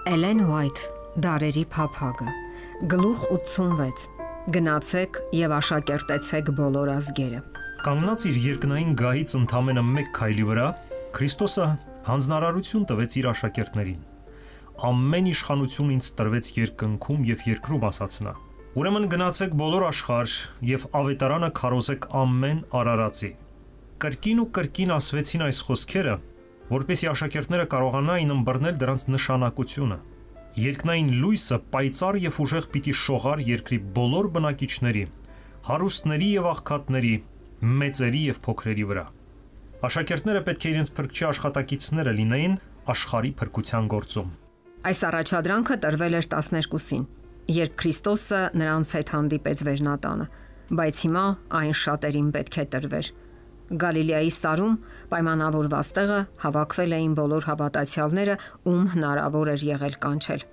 Էլեն Ուայթ, Դարերի փափագը, գլուխ 86, գնացեք և աշակերտեցեք բոլոր ազգերը։ Կանգնած իր երկնային գահից ընդամենը մեկ քայլի վրա, Քրիստոսը հանձնարարություն տվեց իր աշակերտներին։ Ամեն իշխանություն ինձ տրվեց երկնքում և երկրում, ասաց նա։ Ուրեմն գնացեք բոլոր աշխարհ և ավետարանը քարոզեք ամեն արարածի։ Կրկին ու կրկին ասվեցին այս խոսքերը, որպեսզի աշակերտները կարողանային ըմբռնել դրանց նշանակությունը։ Երկնային լույսը պայծառ և ուժեղ պիտի շողար երկրի բոլոր բնակիչների, հարուստների և աղքատների, մեծերի և փոքրերի վրա։ Աշակերտները պետք է իրենց փրկչի աշխատակիցները լինեին աշխարհի փրկության գործում։ Այս առաջադրանքը տրվել էր 12-ին, երբ Քրիստոսը նրանց հետ հանդիպեց Վերնատանը, բայց հիմա այն շատերին պետք է տրվեր։ Գալիլեայի սարում պայմանավորված տեղը հավաքվել էին բոլոր հավատացյալները, ում հնարավոր էր եղել կանչել։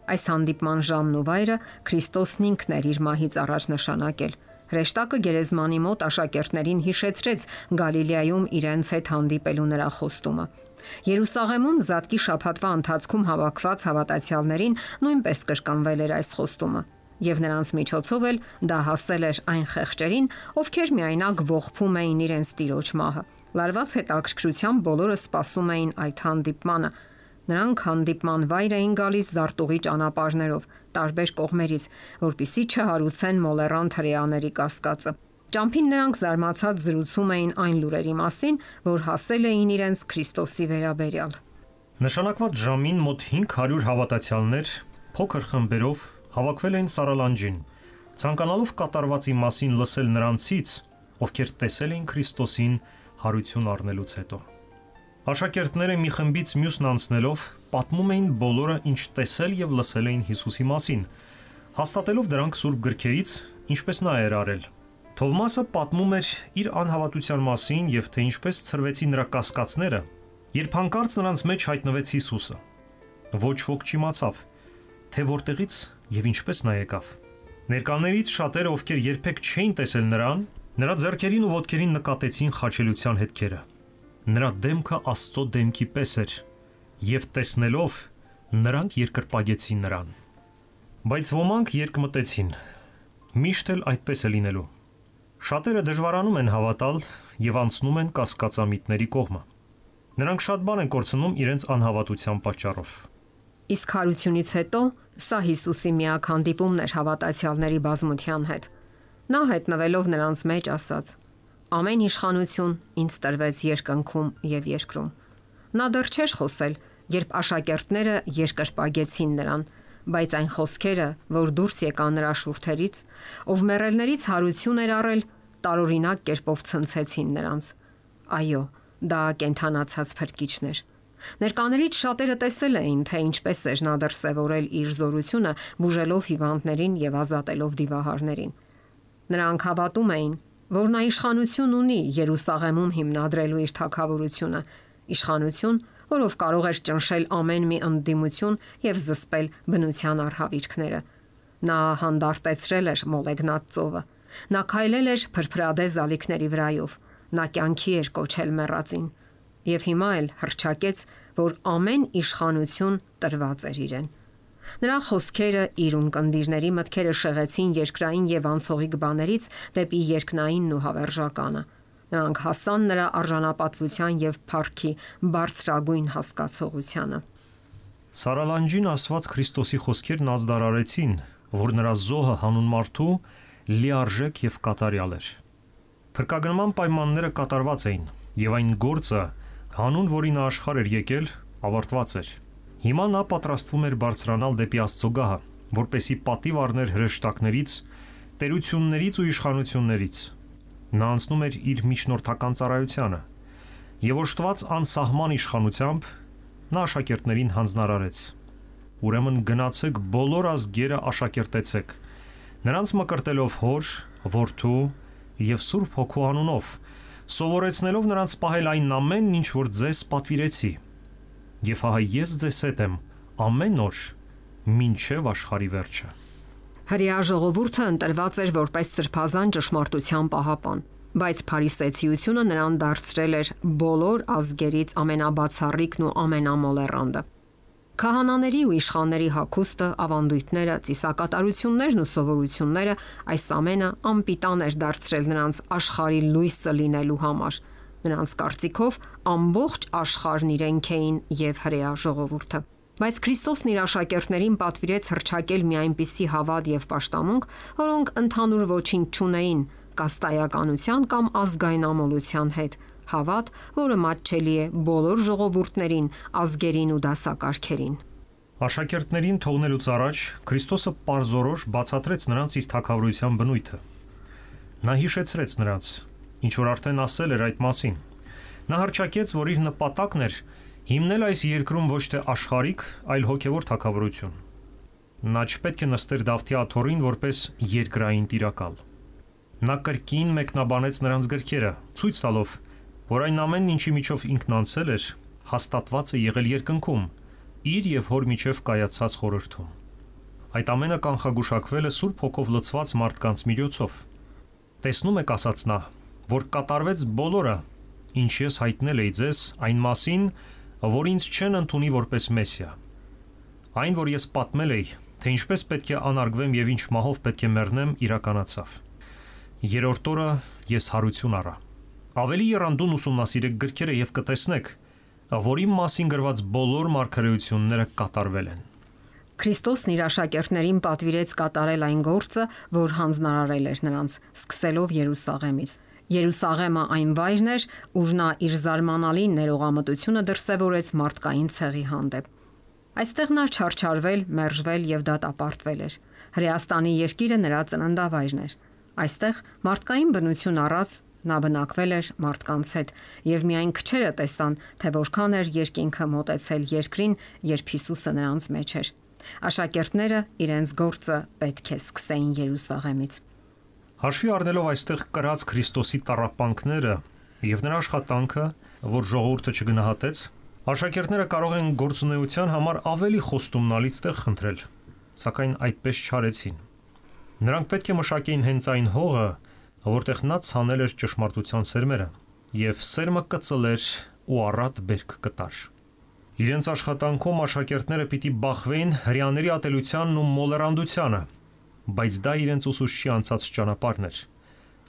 Այս հանդիպման ժամն ու վայրը Քրիստոսն ինքն էր իր մահից առաջ նշանակել։ Հրեշտակը գերեզմանի մոտ աշակերտներին հիշեցրեց Գալիլեայում իրենց հետ հանդիպելու նրա խոստումը։ Երուսաղեմում Զատկի շաբաթվա ընթացքում հավաքված հավատացյալներին նույնպես կրկնվել էր այս խոստումը, եւ նրանց միջոցով էլ դա հասել էր այն խեղճերին, ովքեր միայնակ ողբում էին իրենց տիրոջ մահը։ Լարված հետաքրքրությամբ բոլորը սպասում էին այդ հանդիպմանը։ Նրանք հանդիպման վայր էին գալիս զարտուղի ճանապարհներով, տարբեր կողմերից, որպեսզի չհարուցեն մոլեռան հրեաների կասկածը։ Ճամփին նրանք զարմացած զրուցում էին այն լուրերի մասին, որ հասել էին իրենց Քրիստոսի վերաբերյալ։ Նշանակված ժամին մոտ 500 հավատացյալներ փոքր խմբերով հավաքվել էին Սարալանջին, ցանկանալով կատարվածի մասին լսել նրանցից, ովքեր տեսել էին Քրիստոսին հարություն առնելուց հետո։ Աշակերտները մի խմբից մյուսն անցնելով պատմում էին բոլորը, ինչ տեսել եւ լսել էին Հիսուսի մասին, հաստատելով դրանք սուրբ գրքերից, ինչպես նա էր արել։ Թովմասը պատմում էր իր անհավատության մասին եւ թե ինչպես ցրվեցին նրա կասկածները, երբ հանկարծ նրանց մեջ հայտնվեց Հիսուսը։ Ոչ ոք չիմացավ, թե որտեղից եւ ինչպես նա եկավ։ Ներկաներից շատերը, ովքեր երբեք չէին տեսել նրան, նրա ձեռքերին ու ոտքերին նկատեցին խաչելության հետքերը։ Նրա դեմքը Աստծո դեմքի պես էր, եւ տեսնելով նրանք երկրպագեցին նրան։ Բայց ոմանք երկմտեցին. միշտ էլ այդպես է լինելու։ Շատերը դժվարանում են հավատալ եւ անցնում են կասկածամիտների կողմը։ Նրանք շատ բան են կորցնում իրենց անհավատության պատճառով։ Իսկ հարությունից հետո սա Հիսուսի միակ հանդիպումն էր հավատացյալների բազմության հետ։ Նա հայտնվելով նրանց մեջ ասաց. «Ամեն իշխանություն ինձ տրվեց երկնքում եւ երկրում»։ Նա դեռ չէր խոսել, երբ աշակերտները երկրպագեցին նրան, բայց այն խոսքերը, որ դուրս եկան նրա շուրթերից, ով մեռելներից հարություն էր առել, տարօրինակ կերպով ցնցեցին նրանց։ Այո, դա կենթանացած փրկիչն էր։ Ներկաներից շատերը տեսել էին, թե ինչպես էր նա դրսևորել իր զորությունը, բուժելով հիվանդներին եւ ազատելով դիվահարներին։ Նրանք հավատում էին, որ նա իշխանություն ունի Երուսաղեմում հիմնադրելու իր թագավորությունը, իշխանություն, որով կարող էր ճնշել ամեն մի ընդդիմություն եւ զսպել բնության արհավիրքները։ Նա հանդարտեցրել էր մոլեգնած ծովը։ Նա քայլել էր փրփրադե զալիքների վրայով։ Նա կյանքի էր կոչել մեռածին։ Եվ հիմա էլ հռչակեց, որ ամեն իշխանություն տրված էր իրեն։ Նրա խոսքերը իր ունկնդիրների մտքերը շեղեցին երկրային եւ անցողիկ բաներից դեպի երկնայինն ու հավերժականը։ Նրանք հասան նրա արժանապատվության եւ փառքի բարձրագույն հասկացողությանը։ Սարալանջին ասված Քրիստոսի խոսքերն ազդարարեցին, որ նրա զոհը հանուն մարդու լիարժեք եւ կատարյալ էր։ Փրկագնման պայմանները կատարված էին, եւ այն գործը, հանուն որի նա աշխարհ էր եկել, ավարտված էր։ Հիմա նա պատրաստվում էր բարձրանալ դեպի Աստծո գահը, որպեսի պատիվ առներ հրեշտակներից, տերություններից ու իշխանություններից։ Նա անցնում էր իր միջնորդական ծառայությանը, եւ օժտված անսահման իշխանությամբ նա աշակերտներին հանձնարարեց. Ուրեմն գնացեք բոլոր ազգերը աշակերտեցեք, նրանց մկրտելով Հոր, Որդու եւ Սուրբ Հոգու անունով, սովորեցնելով նրանց պահել այն ամենն, ինչ որ ձեզ պատվիրեցի։ Եվ ահա ես ձեզ հետ եմ ամեն օր մինչև աշխարհի վերջը։ Հրեա ժողովուրդը ընտրված էր որպես սրբազան ճշմարտության պահապան, բայց փարիսեցիությունը նրան դարձրել էր բոլոր ազգերից ամենաբացառիկն ու ամենամոլեռանդը։ Քահանաների ու իշխանների հագուստը, ավանդույթները, ծիսակատարություններն ու սովորությունները այս ամենը անպիտան էր դարձրել նրանց աշխարհի լույսը լինելու համար։ Նրանց կարծիքով ամբողջ աշխարհն իրենք էին եւ հրեա ժողովուրդը։ Բայց Քրիստոսն իր աշակերտներին պատվիրեց հռչակել մի այնպիսի հավատ եւ պաշտամունք, որոնք ընդհանուր ոչինչ չունեին կաստայականության կամ ազգային ամոլության հետ, հավատ, որը մատչելի է բոլոր ժողովուրդներին, ազգերին ու դասակարգերին։ Աշակերտներին թողնելուց առաջ Քրիստոսը պարզորոշ բացատրեց նրանց իր թագավորության բնույթը։ Նա հիշեցրեց նրանց, ինչ որ արդեն ասել էր այդ մասին։ Նա հռչակեց, որ իր նպատակն էր հիմնել այս երկրում ոչ թե աշխարհիկ, այլ հոգևոր թագավորություն։ Նա չպետք է նստեր Դավթի աթոռին որպես երկրային տիրակալ։ Նա կրկին մեկնաբանեց նրանց գրքերը, ցույց տալով, որ այն ամենն, ինչի միջով ինքն անցել էր, հաստատված է եղել երկնքում, իր եւ հոր միջև կայացած խորհրդում։ Այդ ամենը կանխագուշակվել է Սուրբ Հոգով լցված մարդկանց միջոցով։ Տեսնում եք, ասաց նա, որ կատարվեց բոլորը, ինչ ես հայտնել էի ձեզ այն մասին, որ ինձ չեն ընդունի որպես Մեսիա։ Այն, որ ես պատմել էի, թե ինչպես պետք է անարգվեմ եւ ինչ մահով պետք է մեռնեմ, իրականացավ։ Երրորդ օրը ես հարություն առա։ Ավելի եռանդուն ուսումնասիրեք գրքերը եւ կտեսնեք, որ իմ մասին գրված բոլոր մարգարեությունները կատարվել են։ Քրիստոսն իր աշակերտներին պատվիրեց կատարել այն գործը, որ հանձնարարել էր նրանց, սկսելով Երուսաղեմից։ Երուսաղեմը այն վայրն էր, ուր նա իր զարմանալի ներողամտությունը դրսևորեց մարդկային ցեղի հանդեպ։ Այստեղ նա չարչարվել, մերժվել եւ դատապարտվել էր։ Հրեաստանի երկիրը նրա ծննդավայրն էր։ Այստեղ մարդկային բնություն առած նա բնակվել էր մարդկանց հետ եւ միայն քչերը տեսան, թե որքան էր երկինքը մոտեցել երկրին, երբ Հիսուսը նրանց մեջ էր։ Աշակերտները իրենց գործը պետք է սկսեին Երուսաղեմից։ Հաշվի առնելով այստեղ կրած Քրիստոսի տառապանքները եւ նրա աշխատանքը, որ ժողովուրդը չգնահատեց, աշակերտները կարող են գործունեության համար ավելի խոստումնալից տեղ խնդրել, սակայն այդպես չարեցին։ Նրանք պետք է մշակեին հենց այն հողը, որտեղ նա ցանել էր ճշմարտության սերմերը, եւ սերմը կծլեր ու առատ բերք կտար։ Իրենց աշխատանքում աշակերտները պիտի բախվեին հրեաների ատելությանն ու մոլեռանդությանը, բայց դա իրենց ուսուցչի անցած ճանապարհն էր,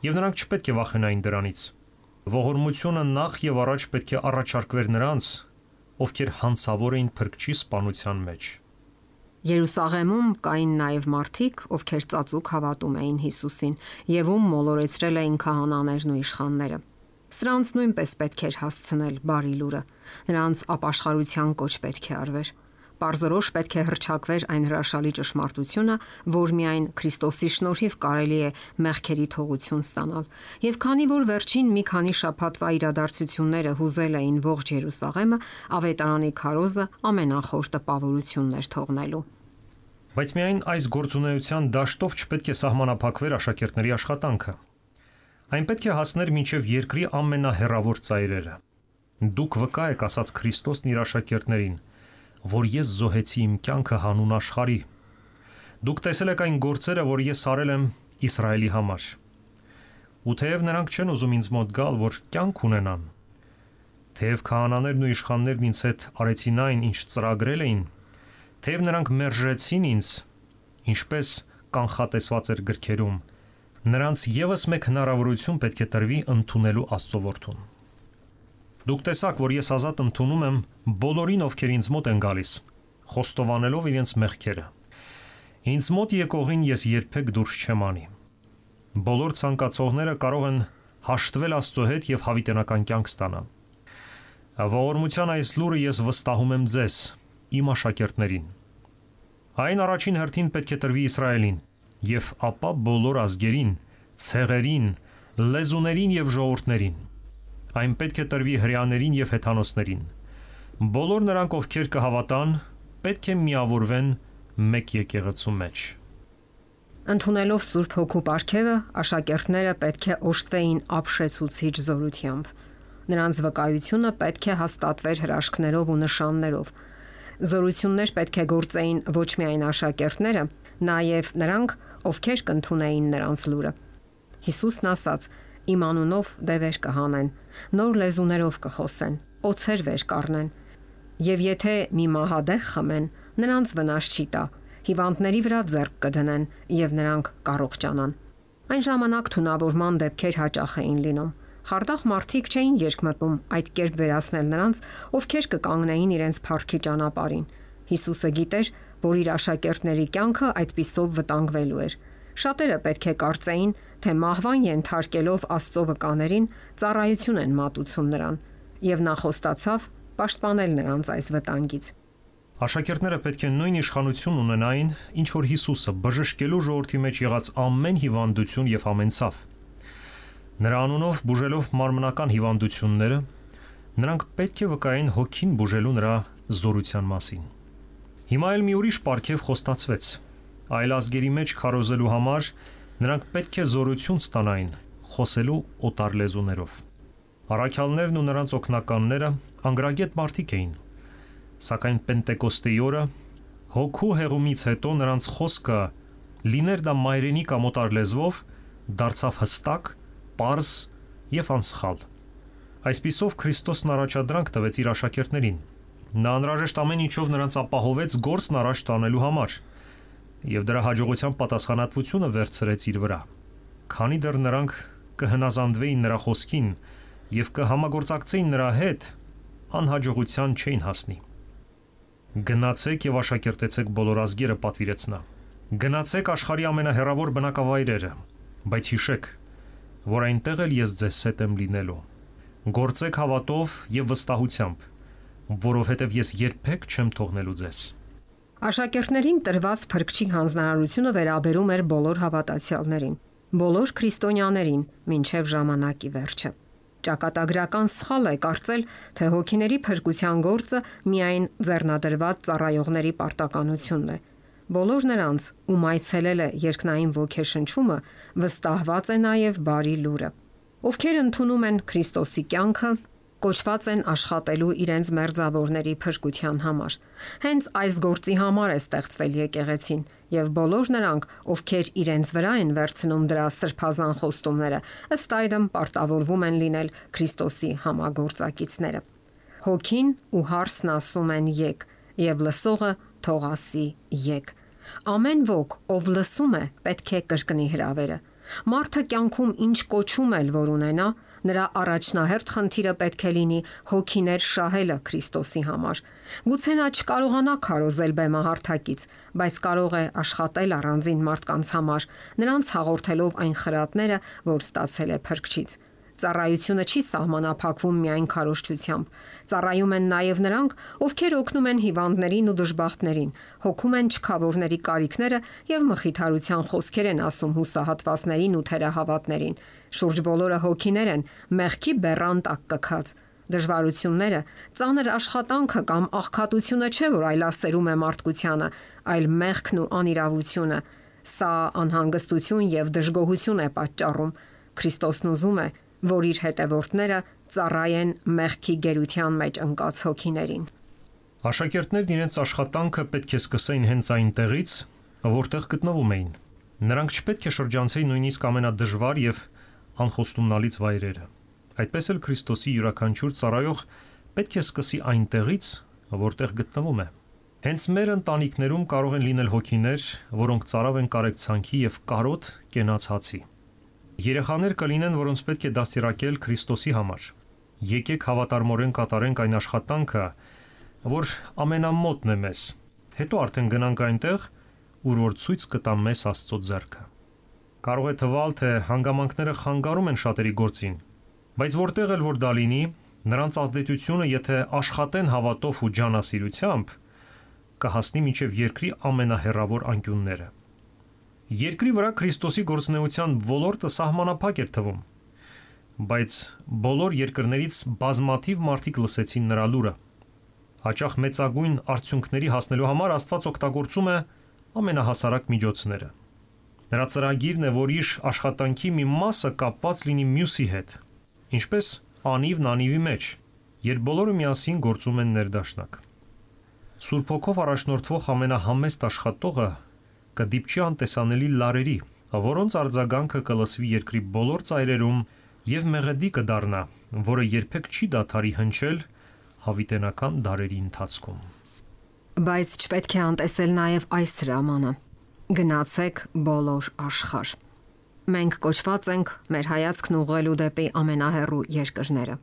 եւ նրանք չպետք է վախենային դրանից։ Ողորմությունը նախ եւ առաջ պետք է առաջարկվեր նրանց, ովքեր հանցավոր էին փրկչի սպանության մեջ։ Երուսաղեմում կային նաև մարդիկ, ովքեր ծածուկ հավատում էին Հիսուսին եւ ում մոլորեցրել էին քահանաներն ու իշխանները։ Սրանց նույնպես պետք էր հասցնել բարի լուրը։ Նրանց ապաշխարության կոչ պետք է արվեր։ Պարզորոշ պետք է հռչակվեր այն հրաշալի ճշմարտությունը, որ միայն Քրիստոսի շնորհիվ կարելի է մեղքերի թողություն ստանալ։ Եվ քանի որ վերջին մի քանի շաբաթվա իրադարձությունները հուզել էին ողջ Երուսաղեմը, ավետարանի քարոզը ամենախոր տպավորությունն էր թողնելու։ Բայց միայն այս գործունեության դաշտով չպետք է սահմանափակվեր աշակերտների աշխատանքը։ Այն պետք է հասներ մինչև երկրի ամենահեռավոր ծայրերը։ Դուք վկա եք, ասաց Քրիստոսն իր աշակերտներին, որ ես զոհեցի իմ կյանքը հանուն աշխարհի։ Դուք տեսել եք այն գործերը, որ ես արել եմ Իսրայելի համար։ Ու թեև նրանք չեն ուզում ինձ մոտ գալ, որ կյանք ունենան, թեև քահանաներն ու իշխաններն ինձ հետ արեցին այն, ինչ ծրագրել էին, թեև նրանք մերժեցին ինձ, ինչպես կանխատեսված էր գրքերում, նրանց եւս մեկ հնարավորություն պետք է տրվի ընդունելու Աստծո որդուն։ Դուք տեսաք, որ ես ազատ ընդունում եմ բոլորին, ովքեր ինձ մոտ են գալիս, խոստովանելով իրենց մեղքերը։ Ինձ մոտ եկողին ես երբեք դուրս չեմ անի։ Բոլոր ցանկացողները կարող են հաշտվել Աստծո հետ եւ հավիտենական կյանք ստանալ։ Ողորմության այս լուրը ես վստահում եմ ձեզ, իմ աշակերտներին։ Այն առաջին հերթին պետք է տրվի Իսրայելին, եւ ապա բոլոր ազգերին, ցեղերին, լեզուներին եւ ժողովուրդներին։ Այն պետք է տրվի հրեաներին եւ հեթանոսներին։ Բոլոր նրանք, ովքեր կհավատան, պետք է միավորվեն մեկ եկեղեցու մեջ։ Ընդունելով Սուրբ Հոգու պարգևը, աշակերտները պետք է օժտվեին ապշեցուցիչ զորությամբ։ Նրանց վկայությունը պետք է հաստատվեր հրաշքներով ու նշաններով։ Զորություններ պետք է գործեին ոչ միայն աշակերտները, նաև նրանք, ովքեր կընդունեին նրանց լուրը։ Հիսուսն ասաց. «Իմ անունով դևեր կհանեն, նոր լեզուներով կխոսեն, օձեր վեր կառնեն, Եվ եթե մի մահադեղ խմեն, նրանց վնաս չի տա, հիվանդների վրա ձեռք կդնեն եւ նրանք կառողջանան։ Այն ժամանակ թունավորման դեպքեր հաճախ էին լինում։ Խարդախ մարդիկ չէին երկմտում այդ կերպ վերացնել նրանց, ովքեր կկանգնեին իրենց փառքի ճանապարհին։ Հիսուսը գիտեր, որ իր աշակերտների կյանքը այդպիսով վտանգվելու էր։ Շատերը պետք է կարծեին, թե մահվան ենթարկելով Աստծո վկաներին ծառայություն են մատուցում նրան, եւ նա խոստացավ պաշտպանել նրանց այս վտանգից։ Աշակերտները պետք է նույն իշխանություն ունենային, ինչ որ Հիսուսը, բժշկելու ժողովրդի մեջ եղած ամեն հիվանդություն եւ ամեն ցավ։ Նրա անունով բուժելով մարմնական հիվանդությունները, նրանք պետք է վկային հոգին բուժելու նրա զորության մասին։ Հիմա էլ մի ուրիշ պարգև խոստացվեց։ Այլ ազգերի մեջ քարոզելու համար նրանք պետք է զորություն ստանային խոսելու օտար լեզուներով։ Առաքյալներն ու նրանց օգնականները անգրագետ մարդիկ էին, սակայն Պենտեկոստեի օրը հոգու հեղումից հետո նրանց խոսքը, լիներ դա մայրենի կամ օտար լեզվով, դարձավ հստակ, պարզ եւ անսխալ։ Այսպիսով Քրիստոսն առաջադրանք տվեց իր աշակերտներին։ Նա անհրաժեշտ ամեն ինչով նրանց ապահովեց գործն առաջ տանելու համար եւ դրա հաջողության պատասխանատվությունը վերցրեց իր վրա։ Քանի դեռ նրանք կհնազանդվեին նրա խոսքին եւ կհամագործակցեին նրա հետ, անհաջողության չէին հասնի։ Գնացեք եւ աշակերտեցեք բոլոր ազգերը, պատվիրեց նա։ Գնացեք աշխարհի ամենահեռավոր բնակավայրերը, բայց հիշեք, որ այնտեղ էլ ես ձեզ հետ եմ լինելու։ Գործեք հավատով եւ վստահությամբ, որովհետեւ ես երբեք չեմ թողնելու ձեզ։ Աշակերտներին տրված փրկչի հանձնարարությունը վերաբերում էր բոլոր հավատացյալներին, բոլոր քրիստոնյաներին, մինչև ժամանակի վերջը։ Ճակատագրական սխալ է կարծել, թե հոգիների փրկության գործը միայն ձեռնադրված ծառայողների պարտականությունն է։ Բոլոր նրանց, ում այցելել է երկնային ոգեշնչումը, վստահված է նաև բարի լուրը։ Ովքեր ընդունում են Քրիստոսի կյանքը, կոչված են աշխատելու իրենց մերձավորների փրկության համար։ Հենց այս գործի համար է ստեղծվել եկեղեցին, եւ բոլոր նրանք, ովքեր իրենց վրա են վերցնում դրա սրբազան խոստումները, ըստ այդմ պարտավորվում են լինել Քրիստոսի համագործակիցները։ Հոգին ու հարսն ասում են եկ, եւ լսողը թող ասի եկ։ Ամեն ոք, ով լսում է, պետք է կրկնի հրավերը։ Մարդը կյանքում ինչ կոչում էլ որ ունենա, նրա առաջնահերթ խնդիրը պետք է լինի հոգիներ շահելը Քրիստոսի համար։ Գուցե նա չկարողանա քարոզել բեմահարթակից, բայց կարող է աշխատել առանձին մարդկանց համար, նրանց հաղորդելով այն խրատները, որ ստացել է Փրկչից։ Ծառայությունը չի սահմանափակվում միայն քարոզչությամբ։ Ծառայում են նաև նրանք, ովքեր օգնում են հիվանդներին ու դժբախտներին, հոգում են չքավորների կարիքները եւ մխիթարության խոսքեր են ասում հուսահատվածներին ու թերահավատներին։ Շուրջ բոլորը հոգիներ են, մեղքի բեռան տակ կքած։ Դժվարությունները, ծանր աշխատանքը կամ աղքատությունը չէ, որ այլասերում է մարդկությանը, այլ մեղքն ու անիրավությունը։ Սա անհանգստություն եւ դժգոհություն է պատճառում։ Քրիստոսն ուզում է, որ իր հետևորդները ծառայեն մեղքի գերության մեջ ընկած հոգիներին։ Աշակերտներն իրենց աշխատանքը պետք է սկսեին հենց այնտեղից, որտեղ գտնվում էին։ Նրանք չպետք է շրջանցեին նույնիսկ ամենադժվար եւ անխոստումնալից վայրերը։ Այդպես էլ Քրիստոսի յուրաքանչյուր ծառայող պետք է սկսի այնտեղից, որտեղ գտնվում է։ Հենց մեր ընտանիքներում կարող են լինել հոգիներ, որոնք ծարավ են կարեկցանքի եւ կարոտ կենացածի։ Երեխաներ կլինեն, որոնց պետք է դաստիարակել Քրիստոսի համար։ Եկեք հավատարմորեն կատարենք այն աշխատանքը, որ ամենամոտն է մեզ։ Հետո արդեն գնանք այնտեղ, ուր որ ցույց կտա մեզ Աստծո ձեռքը։ Կարող է թվալ, թե հանգամանքները խանգարում են շատերի գործին, բայց որտեղ էլ որ դա լինի, նրանց ազդեցությունը, եթե աշխատեն հավատով ու ջանասիրությամբ, կհասնի մինչև երկրի ամենահեռավոր անկյունները։ Երկրի վրա Քրիստոսի գործունեության ոլորտը սահմանափակ էր թվում, բայց բոլոր երկրներից բազմաթիվ մարդիկ լսեցին նրա լուրը։ Հաճախ մեծագույն արդյունքների հասնելու համար Աստված օգտագործում է ամենահասարակ միջոցները։ Նրա ծրագիրն է, որ իր աշխատանքի մի մասը կապված լինի մյուսի հետ, ինչպես անիվն անիվի մեջ, երբ բոլորը միասին գործում են ներդաշնակ։ Սուրբ Հոգով առաջնորդվող ամենահամեստ աշխատողը կդիպչի անտեսանելի լարերի, որոնց արձագանքը կլսվի երկրի բոլոր ծայրերում եւ մեղեդի կդառնա, որը երբեք չի դադարի հնչել հավիտենական դարերի ընթացքում։ Բայց չպետք է անտեսել նաև այս հրամանը. գնացեք բոլոր աշխարհ։ Մենք կոչված ենք մեր հայացքն ուղղելու դեպի ամենահեռու երկրները։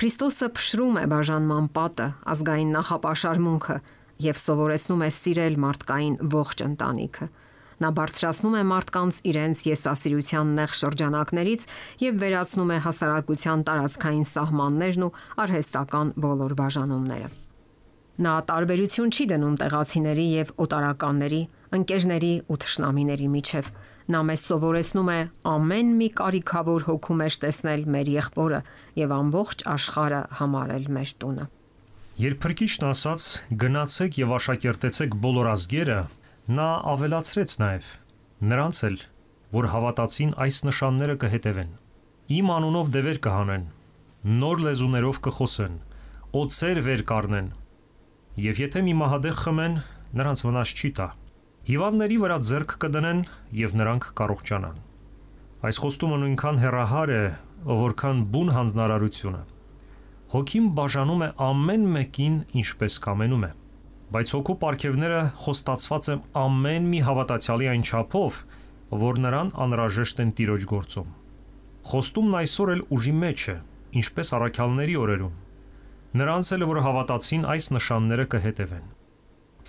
Քրիստոսը փշրում է բաժանման պատը, ազգային նախապաշարմունքը եւ սովորեցնում է սիրել մարդկային ողջ ընտանիքը։ Նա բարձրացնում է մարդկանց իրենց եսասիրության նեղ շրջանակներից եւ վերացնում է հասարակության տարածքային սահմաններն ու արհեստական բոլոր բաժանումները։ Նա տարբերություն չի դնում տեղացիների եւ օտարականների, ընկերների ու թշնամիների միջև։ Նա մեզ սովորեցնում է ամեն մի կարիքավոր հոգու մեջ տեսնել մեր եղբորը եւ ամբողջ աշխարհը համարել մեր տունը։ Երբ Փրկիչն ասաց. «Գնացեք եւ աշակերտեցեք բոլոր ազգերը», նա ավելացրեց նաեւ. «Նրանց էլ, որ հավատացին, այս նշանները կհետևեն. Իմ անունով դևեր կհանեն, նոր լեզուներով կխոսեն, օձեր վեր կառնեն, եւ եթե մի մահադեղ խմեն, նրանց վնաս չի տա։ Հիվանդների վրա ձեռք կդնեն եւ նրանք կառողջանան»։ Այս խոստումը նույնքան հեռահար է, որքան բուն հանձնարարությունը։ Հոգին բաժանում է ամեն մեկին ինչպես կամենում է, բայց հոգու պարգևները խոստացված են ամեն մի հավատացյալի այն չափով, որ նրան անհրաժեշտ են Տիրոջ գործում։ Խոստումն այսօր էլ ուժի մեջ է, ինչպես առաքյալների օրերում։ Նրանց էլ, որ հավատացին, այս նշանները կհետևեն։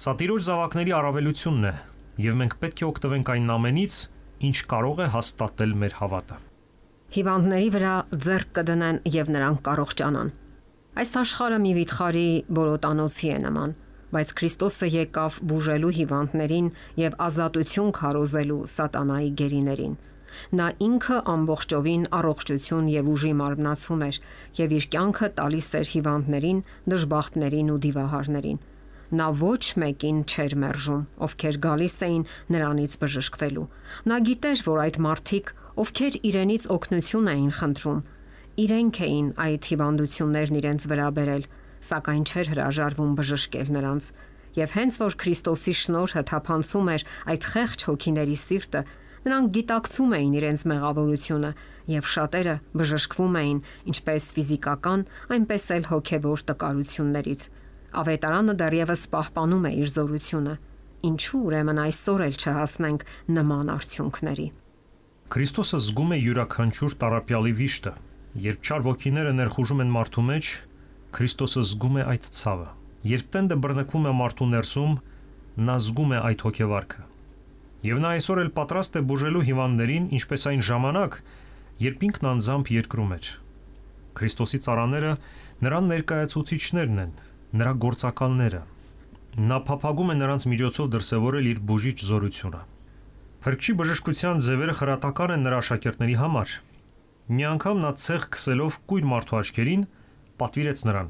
Սա Տիրոջ զավակների առավելությունն է, եւ մենք պետք է օգտվենք այն ամենից, ինչ կարող է հաստատել մեր հավատը։ Հիվանդների վրա ձեռք կդնեն եւ նրանք կառողջանան։ Այս աշխարհը մի վիթխարի բորոտանոցի է նման, բայց Քրիստոսը եկավ բուժելու հիվանդներին եւ ազատություն քարոզելու սատանայի գերիներին։ Նա ինքը ամբողջովին առողջություն եւ ուժի մարմնացում էր եւ իր կյանքը տալիս էր հիվանդներին, դժբախտներին ու դիվահարներին։ Նա ոչ մեկին չէր մերժում, ովքեր գալիս էին նրանից բժշկվելու։ Նա գիտեր, որ այդ մարդիկ, ովքեր իրենից օգնություն էին խնդրում, իրենք էին այդ հիվանդություններն իրենց վրա բերել, սակայն չէր հրաժարվում բժշկել նրանց։ Եվ հենց որ Քրիստոսի շնորհը թափանցում էր այդ խեղճ հոգիների սիրտը, նրանք գիտակցում էին իրենց մեղավորությունը եւ շատերը բժշկվում էին ինչպես ֆիզիկական, այնպես էլ հոգեվոր տկարություններից։ Ավետարանը դեռևս պահպանում է իր զորությունը։ Ինչու ուրեմն այսօր էլ չհասնենք նման արդյունքների։ Քրիստոսը զգում է յուրաքանչյուր տառապյալի վիշտը։ Երբ չար ոգիները ներխուժում են մարդու մեջ, Քրիստոսը զգում է այդ ցավը։ Երբ տենդը բռնկվում է մարդու ներսում, նա զգում է այդ հոգեվարքը։ Եվ նա այսօր էլ պատրաստ է բուժելու հիվանդներին, ինչպես այն ժամանակ, երբ ինքն անձամբ երկրում էր։ Քրիստոսի ծառաները նրան ներկայացուցիչներն են, նրա գործակալները։ Նա փափագում է նրանց միջոցով դրսևորել իր բուժիչ զորությունը։ Փրկչի բժշկության ձևերը խրատական են նրա աշակերտների համար։ Մի անգամ նա ցեղ քսելով կույր մարդու աչքերին, պատվիրեց նրան.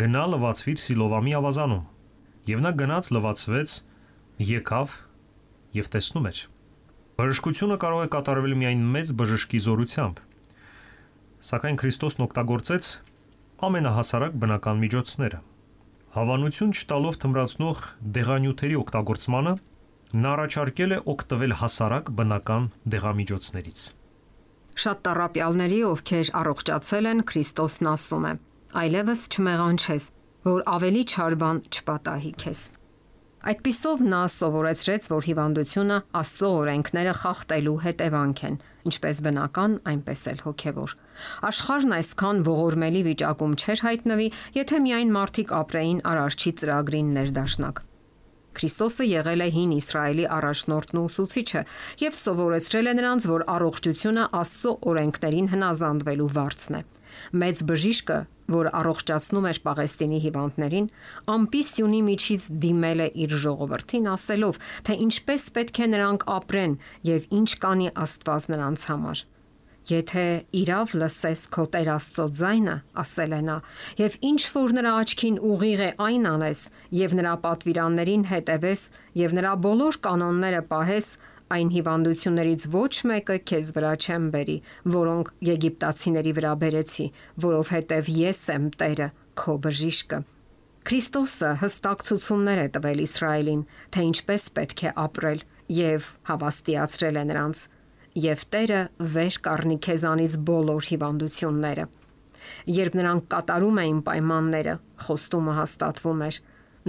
«Գնա լվացվիր Սիլովամի ավազանում»։ Եվ նա գնաց լվացվեց, եկավ եւ տեսնում էր։ Բժշկությունը կարող է կատարվել միայն մեծ բժշկի զորությամբ։ Սակայն Քրիստոսն օգտագործեց ամենահասարակ բնական միջոցները։ Հավանություն չտալով թմրացնող դեղանյութերի օգտագործմանը, նա առաջարկել է օգտվել հասարակ բնական դեղամիջոցներից։ Շատ տառապյալների, ովքեր առողջացել են, Քրիստոսն ասում է. «Այլևս չմեղանչես, որ ավելի չար բան չպատահի քեզ»։ Այդպիսով նա սովորեցրեց, որ հիվանդությունը Աստծո օրենքները խախտելու հետևանք են, ինչպես բնական, այնպես էլ հոգևոր։ Աշխարհն այսքան ողորմելի վիճակում չէր հայտնվի, եթե միայն մարդիկ ապրեին Արարչի ծրագրին ներդաշնակ։ Քրիստոսը եղել է հին Իսրայելի առաջնորդն ու ուսուցիչը եւ սովորեցրել է նրանց, որ առողջությունը Աստծո օրենքներին հնազանդվելու վարձն է։ Մեծ բժիշկը, որ առողջացնում էր Պաղեստինի հիվանդներին, ամպի սյունի միջից դիմել է իր ժողովրդին, ասելով, թե ինչպես պետք է նրանք ապրեն եւ ինչ կանի Աստված նրանց համար։ Եթե իրավ լսես քո Տեր Աստծո ձայնը, ասել է նա, եւ ինչ որ նրա աչքին ուղիղ է, այն անես, եւ նրա պատվիրաններին հետևես, եւ նրա բոլոր կանոնները պահես, այն հիվանդություններից ոչ մեկը քեզ վրա չեմ բերի, որոնք եգիպտացիների վրա բերեցի, որովհետև ես եմ Տերը, քո բժիշկը։ Քրիստոսը հստակ ցուցումներ է տվել Իսրայելին, թե ինչպես պետք է ապրել, եւ հավաստիացրել է նրանց, եւ Տերը վեր կառնի քեզանից բոլոր հիվանդությունները։ Երբ նրանք կատարում էին պայմանները, խոստումը հաստատվում էր։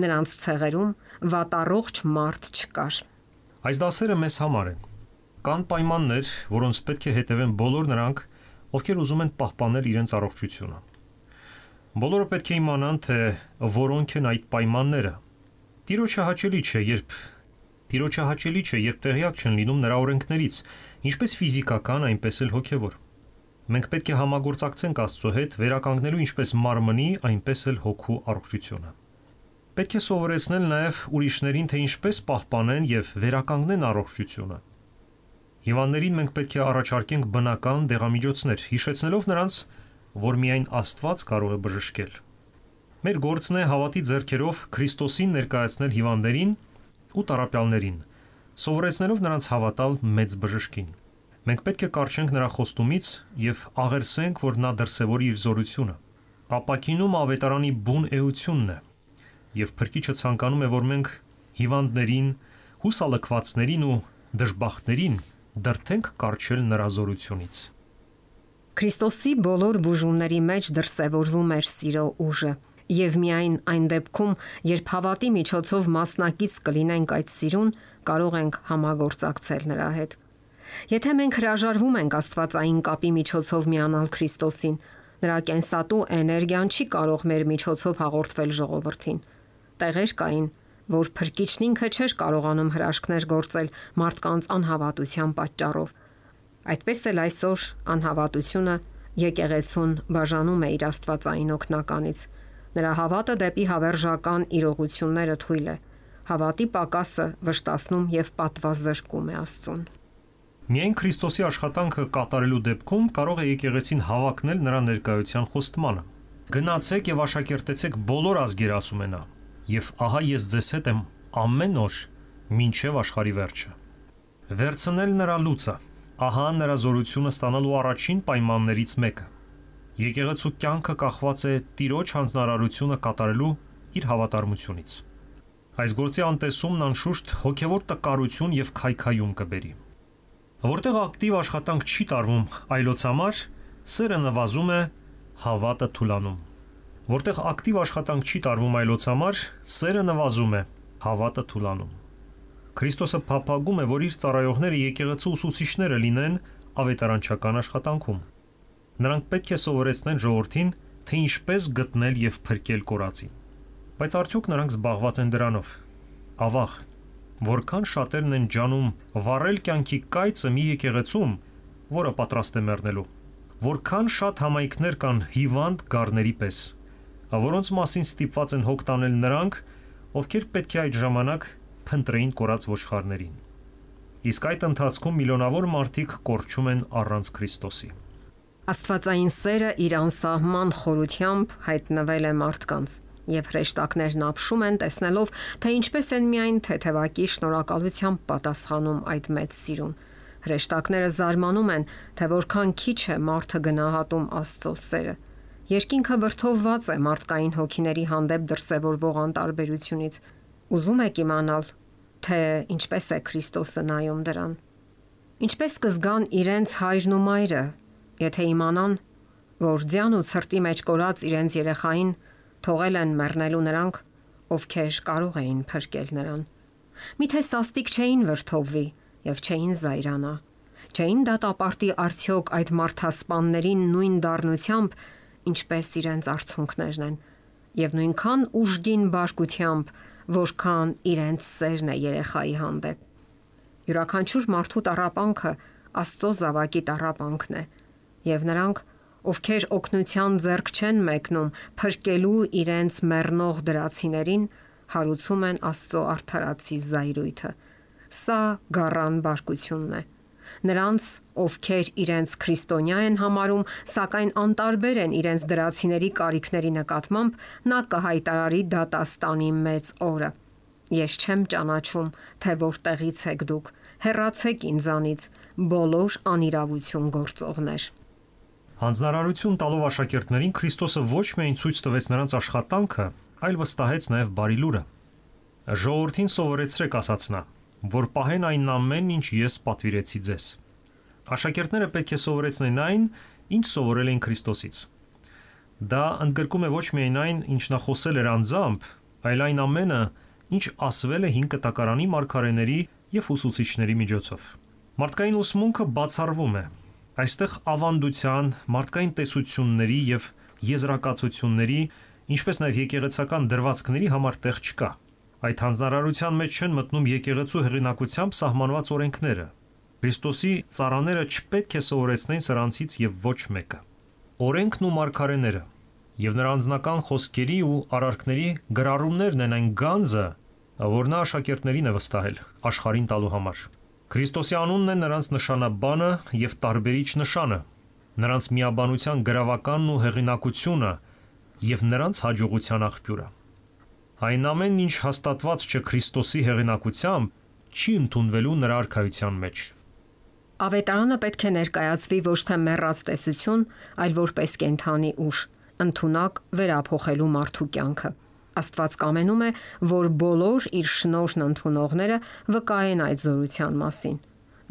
Նրանց ցեղերում վատառողջ մարդ չկար։ Այս դասերը մեզ համար են։ Կան պայմաններ, որոնց պետք է հետևեն բոլոր նրանք, ովքեր ուզում են պահպանել իրենց առողջությունը։ Բոլորը պետք է իմանան, թե որոնք են այդ պայմանները։ Տիրոջը հաճելի չէ, երբ տեղյակ չեն լինում նրա օրենքներից, ինչպես ֆիզիկական, այնպես էլ հոգևոր։ Մենք պետք է համագործակցենք Աստծո հետ, վերականգնելու ինչպես մարմնի, այնպես էլ հոգու առողջությունը։ Պետք է սովորեցնել նաև ուրիշներին, թե ինչպես պահպանեն եւ վերականգնեն առողջությունը։ Հիվանդներին մենք պետք է առաջարկենք բնական դեղամիջոցներ, հիշեցնելով նրանց, որ միայն Աստված կարող է բժշկել։ Մեր գործն է հավատի ձեռքերով Քրիստոսին ներկայացնել հիվանդներին ու տառապյալներին, սովորեցնելով նրանց հավատալ մեծ բժշկին։ Մենք պետք է կառչենք նրա խոստումից եւ աղերսենք, որ նա դրսևորի իր զորությունը։ Ապակինում ավետարանի բուն էությունն է, եւ Փրկիչը ցանկանում է, որ մենք հիվանդներին, հուսալքվածներին ու դժբախտներին դրթենք կառչել նրա զորությունից։ Քրիստոսի բոլոր բուժումների մեջ դրսևորվում էր սիրո ուժը, եւ միայն այն դեպքում, երբ հավատի միջոցով մասնակից կլինենք այդ սիրուն, կարող ենք համագործակցել նրա հետ։ Եթե մենք հրաժարվում ենք աստվածային կապի միջոցով միանալ Քրիստոսին, նրա կենսատու էներգիան չի կարող մեր միջոցով հաղորդվել ժողովրդին։ Տեղեր կային, որ Փրկիչն ինքը չէր կարողանում հրաշքներ գործել մարդկանց անհավատության պատճառով։ Այդպես էլ այսօր անհավատությունը եկեղեցուն բաժանում է իր աստվածային օգնականից։ Նրա հավատը դեպի հավերժական իրողությունները թույլ է։ Հավատի պակասը վշտացնում եւ պատվազրկում է Աստծուն։ Միայն Քրիստոսի աշխատանքը կատարելու դեպքում կարող է եկեղեցին հավակնել նրա ներկայության խոստմանը։ Գնացեք եւ աշակերտեցեք բոլոր ազգեր, ասում է նա, եւ ահա ես ձեզ հետ եմ ամեն օր մինչեւ աշխարհի վերջը։ Վերցնել նրա լուծը, ահա նրա զորությունը ստանալու առաջին պայմաններից մեկը։ Եկեղեցու կյանքը կախված է Տիրոջ հանձնարարությունը կատարելու իր հավատարմությունից։ Այս գործի անտեսումն անշուշտ հոգևոր տկարություն եւ քայքայում կբերի։ Որտեղ ակտիվ աշխատանք չի տարվում այլոց համար, սերը նվազում է, հավատը թուլանում։ Որտեղ ակտիվ աշխատանք չի տարվում այլոց համար, սերը նվազում է, հավատը թուլանում։ Քրիստոսը փափագում է, որ իր ծառայողները եկեղեցու ուսուցիչները լինեն ավետարանչական աշխատանքում։ Նրանք պետք է սովորեցնեն ժողովրդին, թե ինչպես գտնել եւ փրկել կորածին։ Բայց արդյոք նրանք զբաղված են դրանով։ Ավաղ, որքան շատերն են ջանում վառել կյանքի կայծը մի եկեղեցում, որը պատրաստ է մեռնելու։ Որքան շատ համայնքներ կան հիվանդ գառների պես, որոնց մասին ստիպված են հոգ տանել նրանք, ովքեր պետք է այդ ժամանակ փնտրեին կորած ոչխարներին։ Իսկ այդ ընթացքում միլիոնավոր մարդիկ կորչում են առանց Քրիստոսի։ Աստվածային սերը իր անսահման խորությամբ հայտնվել է մարդկանց, եւ հրեշտակներն ապշում են տեսնելով, թե ինչպես են միայն թեթևակի շնորհակալությամբ պատասխանում այդ մեծ սիրուն։ Հրեշտակները զարմանում են, թե որքան քիչ է մարդը գնահատում Աստծո սերը։ Երկինքը վրդովված է մարդկային հոգիների հանդեպ դրսևորվող անտարբերությունից։ Ուզում եք իմանալ, թե ինչպես է Քրիստոսը նայում դրան։ Ինչպես կզգան իրենց հայրն ու մայրը, եթե իմանան, որ ձյան ու ցրտի մեջ կորած իրենց երեխային թողել են մեռնելու նրանք, ովքեր կարող էին փրկել նրան։ Միթե սաստիկ չէին վրդովվի եւ չէին զայրանա։ Չէին դատապարտի արդյոք այդ մարդասպաններին նույն դառնությամբ, ինչպես իրենց արցունքներն են, եւ նույնքան ուժգին բարկությամբ, որքան իրենց սերն է երեխայի հանդեպ։ Յուրաքանչյուր մարդու տառապանքը Աստծո զավակի տառապանքն է, եւ նրանք, ովքեր օգնության ձեռք չեն մեկնում փրկելու իրենց մեռնող դրացիներին, հարուցում են Աստծո արդարացի զայրույթը։ Սա գառան բարկությունն է։ Նրանց, ովքեր իրենց քրիստոնյա են համարում, սակայն անտարբեր են իրենց դրացիների կարիքների նկատմամբ, նա կհայտարարի դատաստանի մեծ օրը։ Ես չեմ ճանաչում, թե որտեղից եք դուք, հեռացեք ինձանից, բոլոր անիրավություն գործողներ։ Հանձնարարություն տալով աշակերտներին Քրիստոսը ոչ միայն ցույց տվեց նրանց աշխատանքը, այլ վստահեց նաև բարի լուրը։ Ժողովրդին սովորեցրեք, ասաց նա, որ պահեն այն ամենն, ինչ ես պատվիրեցի ձեզ։ Աշակերտները պետք է սովորեցնեն այն, ինչ սովորել են Քրիստոսից։ Դա ընդգրկում է ոչ միայն այն, ինչ նա խոսել էր անձամբ, այլ այն ամենը, ինչ ասվել է 5 կտակարանի մարգարեների եւ ուսուցիչների միջոցով։ Մարդկային ուսմունքը բացառվում է։ Այստեղ ավանդության, մարդկային տեսությունների եւ եզրակացությունների, ինչպես նաեւ եկեղեցական դրվածքների համար տեղ չկա։ Այդ հանձնարարության մեջ չեն մտնում եկեղեցու հեղինակությամբ սահմանված օրենքները։ Քրիստոսի ծառաները չպետք է սովորեցնեն սրանցից եւ ոչ մեկը։ Օրենքն ու մարգարեները եւ նրա անձնական խոսքերի ու արարքների գրառումներն են այն գանձը, որ նա աշակերտներին է վստահել աշխարհին տալու համար։ Քրիստոսի անունն է նրանց նշանաբանը եւ տարբերիչ նշանը, նրանց միաբանության գրավականն ու հեղինակությունը եւ նրանց հաջողության աղբյուրը։ Այն ամենն, ինչ հաստատված չէ Քրիստոսի հեղինակությամբ, չի ընդունվելու նրա արքայության մեջ։ Ավետարանը պետք է ներկայացվի ոչ թե մեռած տեսություն, այլ որպես կենդանի ուժ, ընդունակ վերափոխելու մարդու կյանքը։ Աստված կամենում է, որ բոլոր իր շնորհն ընդունողները վկայեն այդ զորության մասին։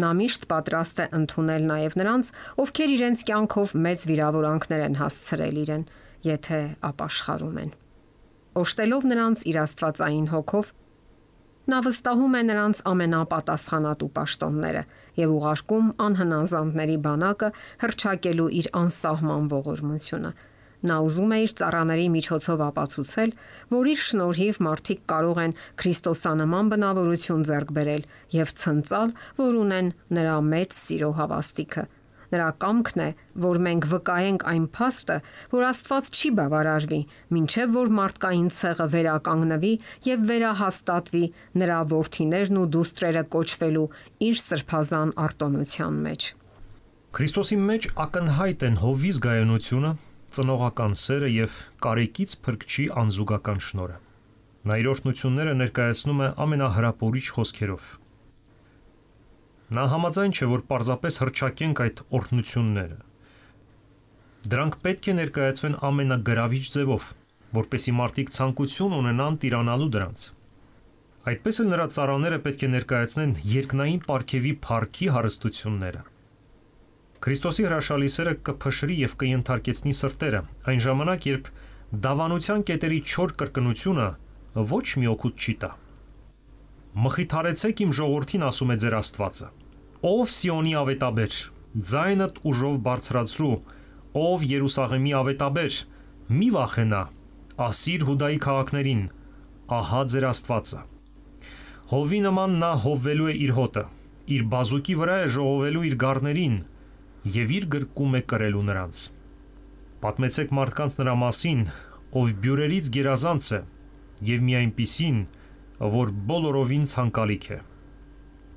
Նա միշտ պատրաստ է ընդունել նաև նրանց, ովքեր իրենց կյանքով մեծ վիրավորանքներ են հասցրել իրեն, եթե ապաշխարում են։ Օժտելով նրանց իր աստվածային հոգով, նա վստահում է նրանց ամենապատասխանատու պաշտոնները եւ ուղարկում անհնազանդների բանակը հռչակելու իր անսահման ողորմությունը։ Նա ուզում է իր ծառաների միջոցով ապացուցել, որ իր շնորհիվ մարդիկ կարող են քրիստոսանման բնավորություն ձեռք բերել եւ ցնծալ, որ ունեն նրա մեծ սիրո հավաստիքը։ Նրա կամքն է, որ մենք վկայենք այն փաստը, որ Աստված չի բավարարվի, մինչև որ մարդկային ցեղը վերականգնվի եւ վերահաստատվի նրա որդիներն ու դուստրերը կոչվելու իր սրբազան արտոնության մեջ։ Քրիստոսի մեջ ակնհայտ են հովիզ գայունությունը, ծնողական սերը եւ կարեկից փրկչի անզուգական շնորհը։ Նա իր օրհնությունները ներկայացնում է ամենահրապուրիչ խոսքերով։ Նա համաձայն չէ, որ պարզապես հռչակենք այդ օրհնությունները։ Դրանք պետք է ներկայացվեն ամենագրավիչ ձևով, որպեսզի մարդիկ ցանկություն ունենան տիրանալու դրանց։ Այդպես էլ նրա ծառաները պետք է ներկայացնեն երկնային պարգևի փառքի հարստությունները։ Քրիստոսի հրաշալի սերը կփշրի եւ կընթարկեցնի սրտերը, այն ժամանակ, երբ դավանության կետերի չոր կրկնությունը ոչ մի օգուտ չի տա։ Մխիթարեցեք իմ ժողովրդին, ասում է ձեր Աստվածը։ Ով Սիոնի ավետաբեր, ձայնդ ուժով բարձրացրու, ով Երուսաղեմի ավետաբեր, մի վախենա, ասիր Հուդայի քաղաքներին, ահա ձեր Աստվածը։ Հովի նման նա հովվելու է իր հոտը, իր բազուկի վրա է ժողովելու իր գառներին եւ իր գրկում է կրելու նրանց։ Պատմեցեք մարդկանց նրա մասին, ով բյուրերից գերազանց է եւ մի այնպիսին, որ բոլորովին ցանկալիք է։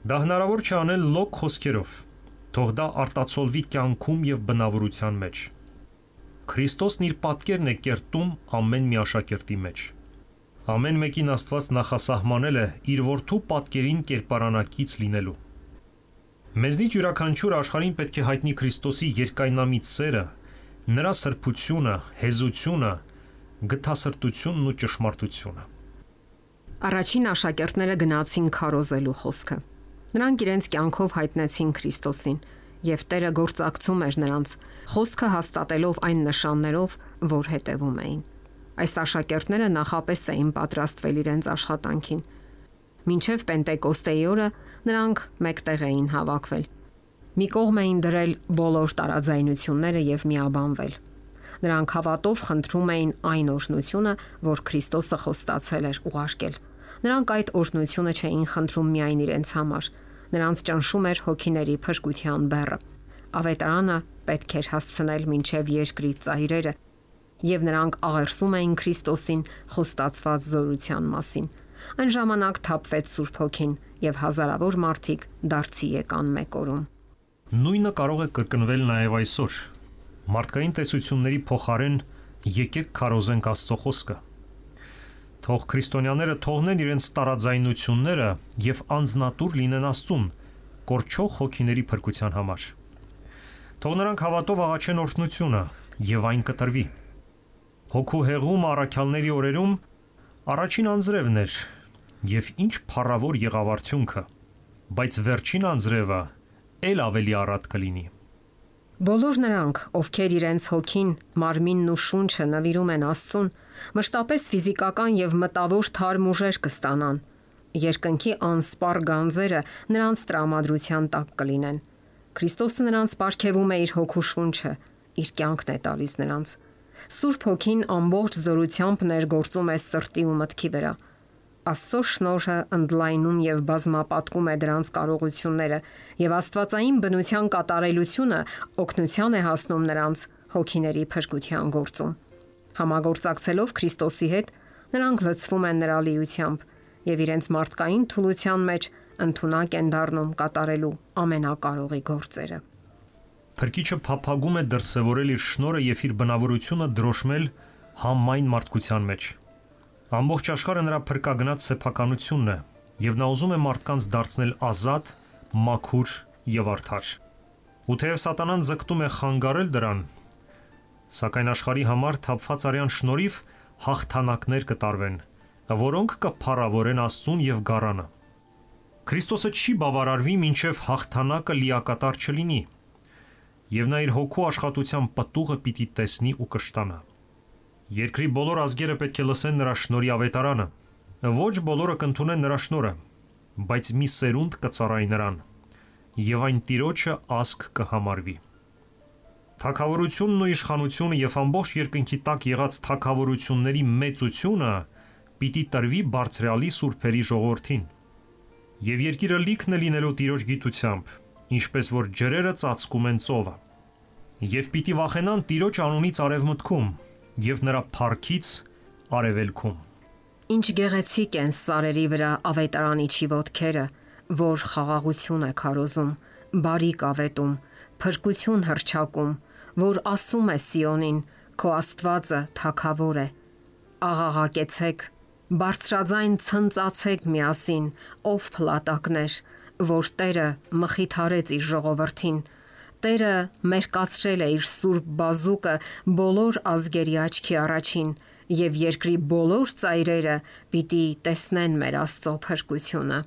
Դա հնարավոր չէ անել լոկ խոսքերով, թող դա արտացոլվի կյանքում եւ բնավորության մեջ։ Քրիստոսն իր պատկերն է կերտում ամեն մի աշակերտի մեջ։ Ամեն մեկին Աստված նախասահմանել է իր որդու պատկերին կերպարանակից լինելու։ Մեզնից յուրաքանչյուր աշխարհին պետք է հայտնի Քրիստոսի երկայնամիտ սերը, նրա սրբությունը, հեզությունը, գթասրտությունն ու ճշմարտությունը։ Առաջին աշակերտները գնացին քարոզելու խոսքը։ Նրանք իրենց կյանքով հայտնեցին Քրիստոսին, եւ Տերը գործակցում էր նրանց, խոսքը հաստատելով այն նշաններով, որ հետևում էին։ Այս աշակերտները նախապես էին պատրաստվել իրենց աշխատանքին։ Մինչև Պենտեկոստեի օրը նրանք մեկտեղ էին հավաքվել։ Մի կողմ էին դրել բոլոր տարաձայնությունները եւ միաբանվել։ Նրանք հավատով խնդրում էին այն օրհնությունը, որ Քրիստոսը խոստացել էր ուղարկել։ Նրանք այդ օրհնությունը չէին խնդրում միայն իրենց համար։ Նրանց ճնշում էր հոգիների փրկության բեռը։ Ավետարանը պետք էր հասցնել մինչև երկրի ծայրերը, եւ նրանք աղերսում էին Քրիստոսին խոստացված զորության մասին։ Այն ժամանակ թափվեց Սուրբ Հոգին եւ հազարավոր մարդիկ դարձի եկան մեկ օրում։ Նույնը կարող է կրկնվել նաեւ այսօր։ Մարդկային տեսությունների փոխարեն եկեք քարոզենք Աստծո խոսքը։ Թող քրիստոնյաները թողնեն իրենց տարաձայնությունները եւ անձնատուր լինեն Աստծուն, կորչող հոգիների փրկության համար։ Թող նրանք հավատով աղաչեն օրհնությունը եւ այն կտրվի։ Հոգու հեղում առաքյալների օրերում առաջին անձրևն էր եւ ինչ փառավոր եղավ արդյունքը, բայց վերջին անձրևը ել ավելի առատ կլինի։ Բոլոր նրանք, ովքեր իրենց հոգին, մարմինն ու շունչը նվիրում են Աստծուն, մշտապես ֆիզիկական եւ մտավոր թարմ ուժեր կստանան։ Երկնքի անսպառ գանձերը նրանց տրամադրության տակ կլինեն։ Քրիստոսը նրանց պարգևում է իր հոգու շունչը, իր կյանքն է տալիս նրանց։ Սուրբ Հոգին ամբողջ զորությամբ ներգործում է սրտի ու մտքի վրա։ Աստծո շնորհը ընդլայնում եւ բազմապատկում է դրանց կարողությունները, եւ աստվածային բնության կատարելությունը օգնության է հասնում նրանց հոգիների փրկության գործում։ Համագործակցելով Քրիստոսի հետ, նրանք լցվում են նրա լիությամբ եւ իրենց մարդկային թուլության մեջ ընդունակ են դառնում կատարելու ամենակարողի գործերը։ Փրկիչը փափագում է դրսևորել իր շնորհը եւ իր բնավորությունը դրոշմել համայն մարդկության մեջ։ Ամբողջ աշխարհը նրա փրկագնաց սեփականությունն է, եւ նա ուզում է մարդկանց դարձնել ազատ, մաքուր եւ արդար։ Ու թեև սատանան ձգտում է խանգարել դրան, սակայն աշխարհի համար թափված արյան շնորհիվ հաղթանակներ կտարվեն, որոնք կփառավորեն Աստծուն եւ գառանը։ Քրիստոսը չի բավարարվի, մինչև հաղթանակը լիակատար չլինի, եւ նա իր հոգու աշխատության պտուղը պիտի տեսնի ու կշտանա։ Երկրի բոլոր ազգերը պետք է լսեն նրա շնորհի ավետարանը։ Ոչ բոլորը կընդունեն նրա շնորհը, բայց մի սերունդ կծառայի նրան, եւ այն Տիրոջը ազգ կհամարվի։ Թագավորությունն ու իշխանությունը եւ ամբողջ երկնքի տակ եղած թագավորությունների մեծությունը պիտի տրվի բարձրալի սուրբերի ժողովրդին։ Եվ երկիրը լիքն է լինելու Տիրոջ գիտությամբ, ինչպես որ ջրերը ծածկում են ծովը։ Եվ պիտի վախենան Տիրոջ անունից արևմուտքում եւ նրա փառքից արևելքում։ Ինչ գեղեցիկ են սարերի վրա ավետարանիչի ոտքերը, որ խաղաղություն է քարոզում, բարիք ավետում, փրկություն հռչակում, որ ասում է Սիոնին, քո Աստվածը թագավոր է։ Աղաղակեցեք, բարձրաձայն ցնծացեք միասին, ով փլատակներ, որ Տերը մխիթարեց իր ժողովրդին։ Տերը մերկացրել է իր սուրբ բազուկը բոլոր ազգերի աչքի առաջին, եւ երկրի բոլոր ծայրերը պիտի տեսնեն մեր Աստծո փրկությունը։